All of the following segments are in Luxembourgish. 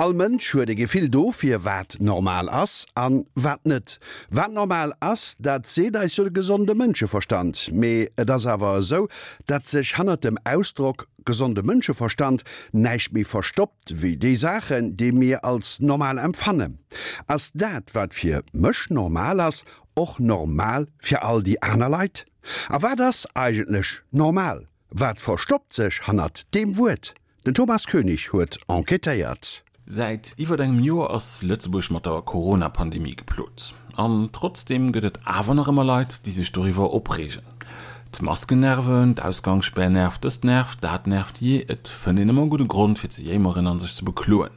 All Mënsch huet e Gefill dofir, wat normal ass an wat net. Wat normal ass, dat seet eis jo de gesonde Mënscheverstand. Mee et ass awer esou, datt sech hannert dem Ausdrock gesonde Mënscheverstand näischt méi verstoppt wéi déi Saachen, déi mir als normal empfannen. Ass dat, wat fir mech normal ass, och normal fir all déi aner Leit? A wat ass eigentlech normal? Wat verstoppt sech hannert deem Wuert? Den Thomas Koenig huet enquêtéiert. Säit iwwert engem Joer ass Lëtzebuerg mat der Corona-Pandemie geplot. An trotzdeem gëtt et awer nach ëmmer Leit, déi sech doriwwer opreegen. D'Masken nerven, d'Ausgangsspär nervt, dëst nervt, dat nervt, jee, et fënnt een ëmmer e gudde Grond fir ze jéimeren an sech ze bekloen.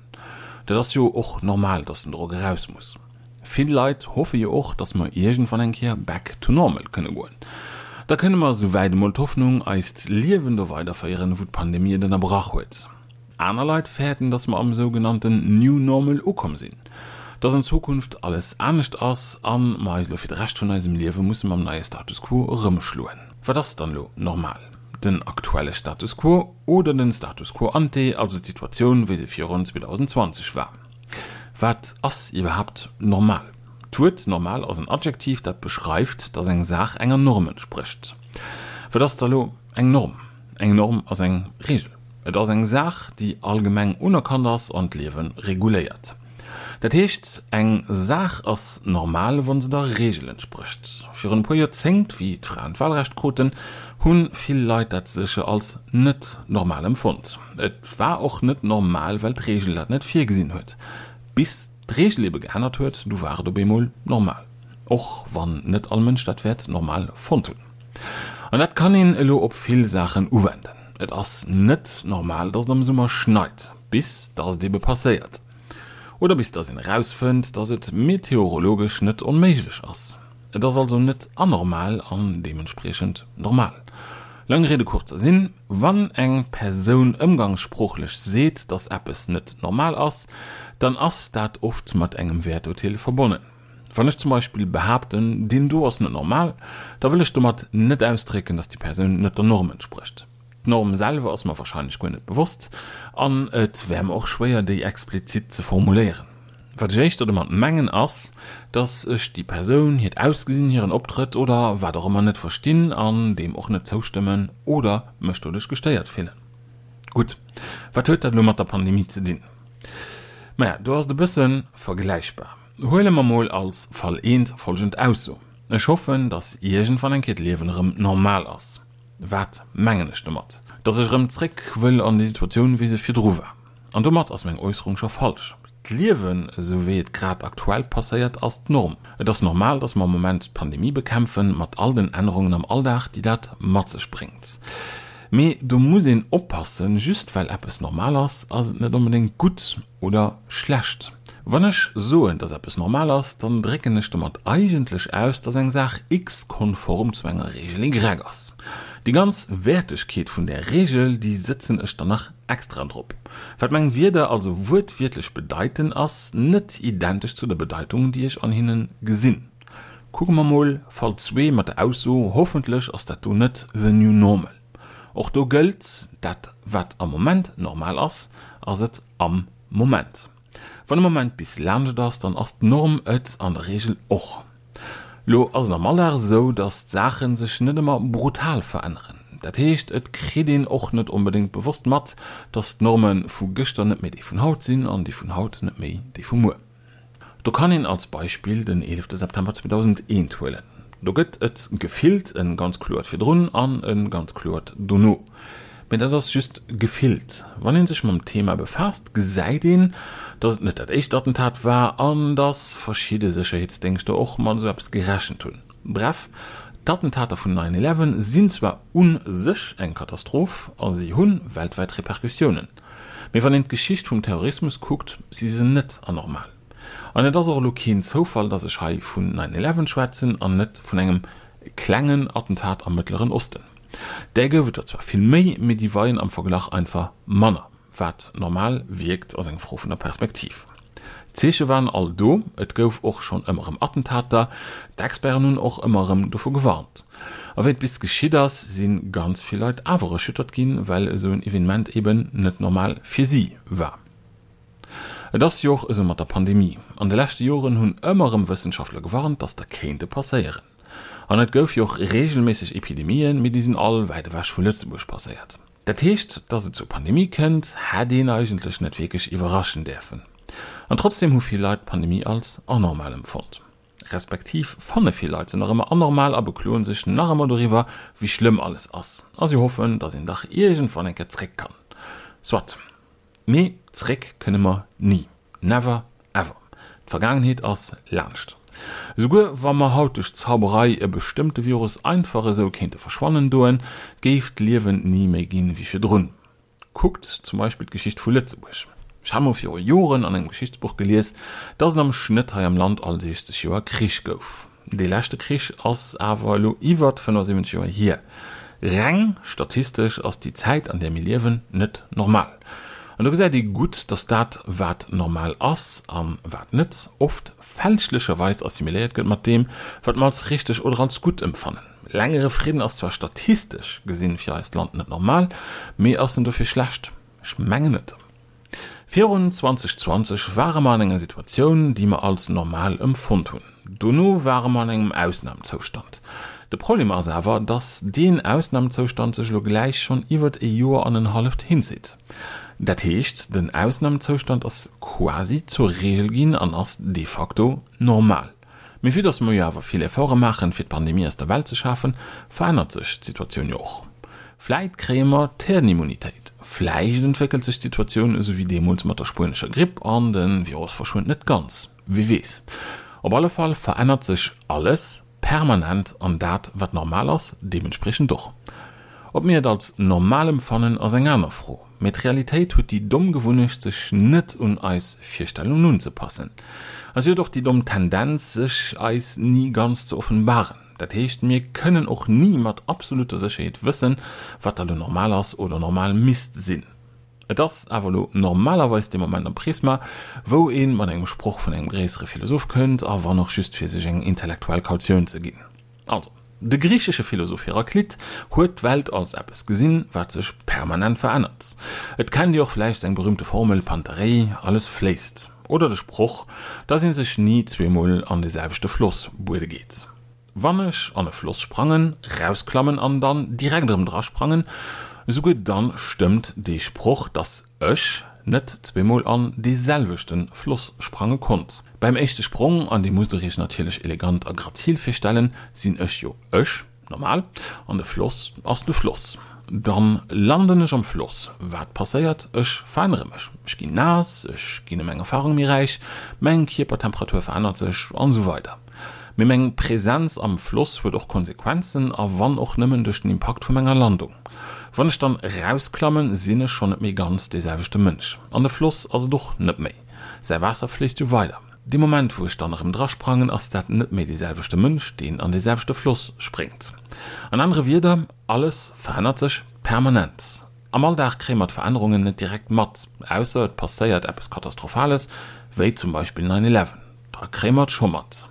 Dat ass jo och normal, dass den Drock eraus muss. Vill Leit hoffe jo och, dass mer iergendwann eng Kéier back to normal kënne goen. Da kënne mer, souwäit emol d'Hoffnung, eist Liewen do weiderféieren, wou d'Pandemie et ënnerbrach huet. Aner Leit fäerten, dass mer am sougenannten New Normal ukomm sinn, dass an Zukunft alles anescht ass a mer eis elo fir de Rescht vun eisem Liewe musse mam neie Status quo erëmschloen. Wat ass dann elo normal? Den aktuelle Status quo oder den Status quo ante, also d'Situatioun, wéi se virun 2020 war? Wat ass iwwerhaapt normal? D'Wuert normal ass en Adjektiv, dat beschreift, dass eng Saach enger Norm entsprécht. Wat ass da lo eng Norm? Eng Norm ass eng Reegel. Et ass eng Saach, déi allgemeng unerkannt ass an d'Liewe reguléiert. Dat heescht, eng Saach ass normal, wa se der Reegel entsprécht. Virun e puer Joerzéngt, wéi d'Fraen d'Wahlrecht kruten, hu vill Leit dat sécher als net normal empfonnt. Et war och net normal, well d'Reegel dat net virgesinn huet. Bis d'Reegel ebe geännert huet, du war et op eemol normal. Och wann net all Mënsch dat wäert normal fonnt hunn. An dat kann een elo op vill Saachen uwenden. Et ass net normal, dass et am Summer schneit, bis dass et ebe passéiert. Oder bis dass een erausfënnt, dass et meteorologesch net onméiglech ass. Et ass also net anormal an deementspriechend normal. Lange Rede kurzer Sinn, Wann eng Persoun ëmgangssproochlech seet, dass eppes net normal ass, dann ass dat oft mat engem Wäerturteel verbonnen. Wann ech zum Beispill behaapten, deen do ass net normal, da wëll ech domat net ausdrécken, dass déi Persoun net der Norm entsprécht. D'Norm selwer ass mer warscheinlech guer net bewosst an et wär mer och schwéier, déi explizit ze formuléieren. Wat ech éischter domat mengen ass, dass ech déi Persoun, hiert Ausgesinn, hiren Optrëtt oder wat och ëmmer net verstinn an deem och net zoustëmmen oder mech doduerch gestéiert fillen. Gutt, wat huet dat elo mat der Pandemie ze dinn? Maja, do ass et e bësse vergläichbar. Huele mer mol als Fall eent folgend Ausso, Ech hoffen, dass iergendwann eng Kéier d'Liewen erëm normal ass. Wat mengen ech domat? Dass ech erëm zréck wëll an déi Situatioun, wéi se virdru war. An domat ass meng Äusserung scho falsch. D'Liewen, esou wéi et grad aktuell passéiert, ass d'Norm. Et ass normal, dass mer am Moment d'Pandemie bekämpfen, mat all den Ännerungen am Alldag, déi dat mat sech bréngt. Mee do muss een oppassen, Just well eppes normal ass, ass et net onbedéngt gutt oder schlecht. Wann ech soen, dass eppes normal ass, dann drécken ech domat eigentlech aus, dass eng Saach X konform zu enger Reegel Y ass. Déi ganz Wäertegkeet vun där Reegel, déi sëtzen ech dann nach extra drop. Wat meng Wierder also wuertwiertlech bedeiten, ass net identesch zu der Bedeitung, déi ech an hinne gesinn. Kucke mer mol Fall zwee mat der Ausso, Hoffentlech ass dat do net the new normal. Och do gëllt, dat wat am Moment normal ass, ass et am Moment. Wann e Moment bis laanscht ass, dann ass d'Norm et an der Reegel och. Lo ass et am Alldag esou, dass d'Saache sech net ëmmer brutal veränneren. Dat heescht, et kritt een och net onbedéngt bewosst mat, dass d'Norme vu gëschter net méi déi vun haut sinn an déi vun haut net méi déi vu muer. Do kann een als Beispill den 11 September 2001 huelen. Do gëtt et gefillt e ganz kloert Virdrun an e ganz kloert Dono. Mee dat ass just gefillt. Wann ee sech mam Thema befaasst, gesäit een, datt et net dat éischt Attentat war an datt verschidde Sécherheetsdéngschter och mat esou eppes gerechent hunn. Bref, d'Attentater vun Nine Eleven sinn zwar u sech eng Katastroph a si hu weltwäit Repercussiounen. Mee wann een d'Geschicht vum Terrorismus kuckt, si se net anormal. An et ass och elo keen Zoufall, datt ech hei vun Nine Eleven schwätzen an net vun engem klengen Attentat am Mëttleren Osten. Där gouf et der zwar vill méi, mee déi weien am Verglach einfach manner. Wat normal wierkt, ass eng Fro vun der Perspektiv. D'Zeeche waren all do, et gouf och schonn ëmmer erëm Attentater, d'Experten hunn och ëmmer erëm dovu gewarnt. A wéi et bis geschitt ass, si ganz vill Leit awer erschüttert ginn, well esou en Evenement eben net normal fir si war. Et ass jo och esou mat der Pandemie. An de leschte Joren hunn ëmmer erëm Wëssenschaftler gewarnt, dass der kéinte passéieren. An et gouf jo och reegelméisseg Epidemien, mee déi sinn all wäit ewech vu Lëtzebuerg passéiert. Dat heescht, dass et zur Pandemie kënnt, hätt een eigentlech net wierklech iwwerraschen däerfen. An trotzdeem hu vill Leit d'Pandemie als anormal empfonnt. Respektiv fanne vill Leit se nach ëmmer anormal a bekloen sech nach ëmmer doriwwer, wéi schlëmm alles ass. A si hoffen, dass een dach iergendwann eng Kéier zréck kann. Soit. Mee zréck kënne mer ni. Never ever. D'Vergaangenheet ass laanscht. Esouguer wa mer haut duerch Zauberei e bestëmmte Virus einfach esou kéinte verschwannen doen, géif d'Liewen ni méi ginn wéi virdrun. Kuckt zum Beispill d'Geschicht vu Lëtzebuerg. Ech hat mol viru Joren an engem Geschichtsbuch gelies, dass et am Schnëtt hei am Land all 60 Joer Krich gouf. Dee leschte Krich ass awer elo iwwert 75 Joer hier. Reng statistesch ass déi Zäit, an där mir liewen, net normal. An do gesäit ee gutt, dass dat, wat normal ass a wat net, oft fälschlecherweis assimiléiert gëtt mat deem, wat mer als richteg oder als gutt empfannen. Längere Fridden ass zwar statistesch gesinn fir eist Land net normal, mee ass en dofir schlecht? Ech mengen net. Virun 2020 ware mer an enger Situatioun, déi mer als normal emfonnt hunn. Dono ware mer an engem Ausnamezoustand. De Problem ass awer, dass deen Ausnamezoustand sech elo gläich schonn iwwert e Joer an en halleft hinzitt. Dat heescht, den Ausnamezoustand ass quasi zur Regel ginn an ass de facto normal. Mee vue dass mer jo awer vill Efforte maachen, fir d'Pandemie aus der Welt ze schafen, verännert sech d'Situatioun jo och. Vläit kréie mer d'Herdenimmunitéit, vläicht entwéckelt sech d'Situatioun esou wéi deemools mat der spuenescher Gripp an de Virus verschwënnt net ganz, wie weess. Op alle Fall verännert sech alles permanent an dat wat normal ass deementspriechend och. Ob mir et als normal empfannen ass eng aner Fro, mee d'Realitéit huet déi domm Gewunnecht sech net un eis Virstellungen unzepassen. A si huet och déi domm Tendenz sech eis ni ganz ze offenbaren. Dat heescht mir kënnen och ni mat absoluter Sécherheet wëssen wat da lo normal ass oder normal misst sinn. Et ass awer elo normalerweis dee Moment am Prisma, wou ee mat engem Sproch vun engem gréissere Philosoph kënnt, a wann och just fir sech eng intellektuell Kautioun ze ginn. Also, de griichesche Philosoph Heraklit huet d'Welt als eppes gesinn, wat sech permanent verännert. Et kennt Dir och vläicht seng berühmte Formel Panta rhei, alles fléisst, oder de Sproch, dass ee sech ni zweemol an de selwechte Floss buede geet. Wann ech an e Floss sprangen, rausklammen an dann direkt erëm drasprangen, esouguer dann stëmmt dee Sproch, dass ech net zweemol an dee selwechte Floss sprange konnt. Beim éischte Sprong, an dee musst der iech natierlech elegant a grazil virstellen, sinn ech jo ech, normal, an de Floss ass de Floss. Dann landen ech am Floss. Wat passéiert? Ech verännere mech. Ech ginn naass, ech ginn ëm eng Erfarung méi räich, meng Kierpertemperatur verännert sech an esou weider. Mee meng Präsenz am Floss huet och Konsequenzen, a wann och nëmmen duerch den Impakt vu menger Landung. Wann ech dann erausklammen, sinn ech schonn net méi ganz dee selwechte Mënsch. An de Floss ass et och net méi. Säi Waasser fléisst jo weider. Dee Moment wou ech dann erëm drasprangen, ass dat net méi dee selwechte Mënsch, deen an dee selwechte Floss spréngt. An anere Wierder, alles verännert sech permanent. Am Alldag kréie mer d'Verännerungen net direkt mat, ausser et passéiert eppes Katastrophales, wéi zum Beispill Nine Eleven. Da kréie mer et scho mat.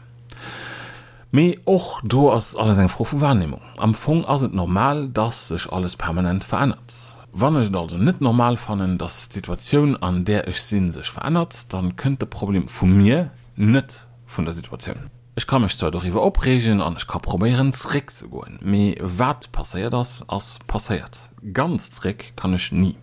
Mee och do ass alles eng Fro vu Wahrnehmung. Am Fong ass et normal, dass sech alles permanent verännert. Wann ech et also net normal fannen, dass d'Situatioun an där ech sinn sech verännert, dann kënnt de Problem vu mir, net vun der Situatioun. Ech ka mech zwar doriwwer opreegen an ech ka probéieren zréck ze goen, mee wat passéiert ass, ass passéiert. Ganz zréck kann ech ni.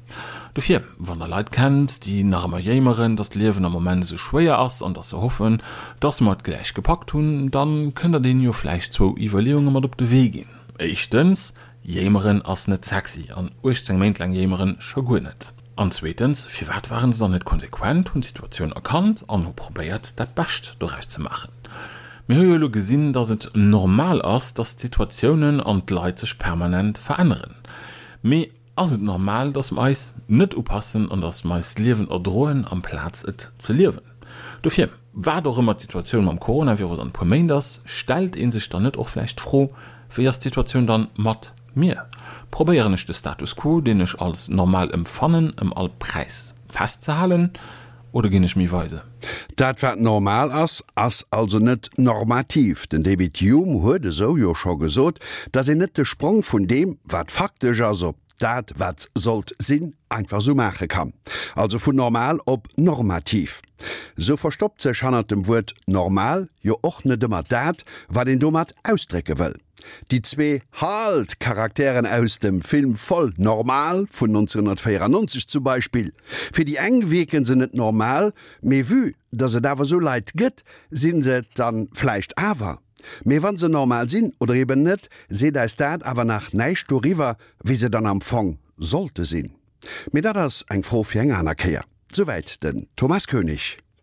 Dofir, wann der Leit kennt, déi nach ëmmer jéimeren, dass d'Liewen am Moment esou schwéier ass an dass se hoffen, dass mer et gläich gepackt hunn, dann kënnt der deenen jo vläicht zwou Iwwerleeunge mat op de Wee ginn. Éischtens, Jéimeren ass net sexy an 18 Méint laang jéimeren scho guer net. An zweetens, firwat waren se dann net konsequent, hunn d'Situatioun erkannt an hu probéiert dat Bescht doraus ze maachen? Mir hu jo elo gesinn, datt et normal ass, datt d'Situatiounen an d'Leit sech permanent veränneren. Mee ass et normal, datt mer eis net upassen an datt mer eist Liewen erdroen amplaz et ze liewen? Dofir, wat och ëmmer d'Situatioun mam Coronavirus an e puer Méint ass, stellt ee sech dann net och vläicht d'Fro, Wéi ass d'Situatioun dann mat mir? Probéieren ech de Status quo, deen ech als normal empfannen, ëm all Präis festzehalen oder ginn ech méi weise? Dat wat normal ass, ass also net normativ. Den David Hume huet esou jo scho gesot, datt een net de Sprong vun deem, wat faktesch ass, op. dat wat sollt sinn, einfach sou maache kann. Also vun normal op normativ. Sou verstoppt sech hannert dem Wuert normal jo och net ëmmer dat, wat een domat ausdrécke wëll. Déi zwee Halt! Charakteren aus dem Film Voll normal vun 1994 zum Beispill. Fir déi eng wierken se net normal, mee vue dass et awer sou Leit gëtt, sinn se et dann vläicht awer. Mee wann se normal sinn oder eben net, seet eis dat awer nach näischt doriwwer, wéi se dann am Fong sollte sinn. Mee dat ass eng Fro fir eng aner Kéier. Souwäit den Thomas Koenig.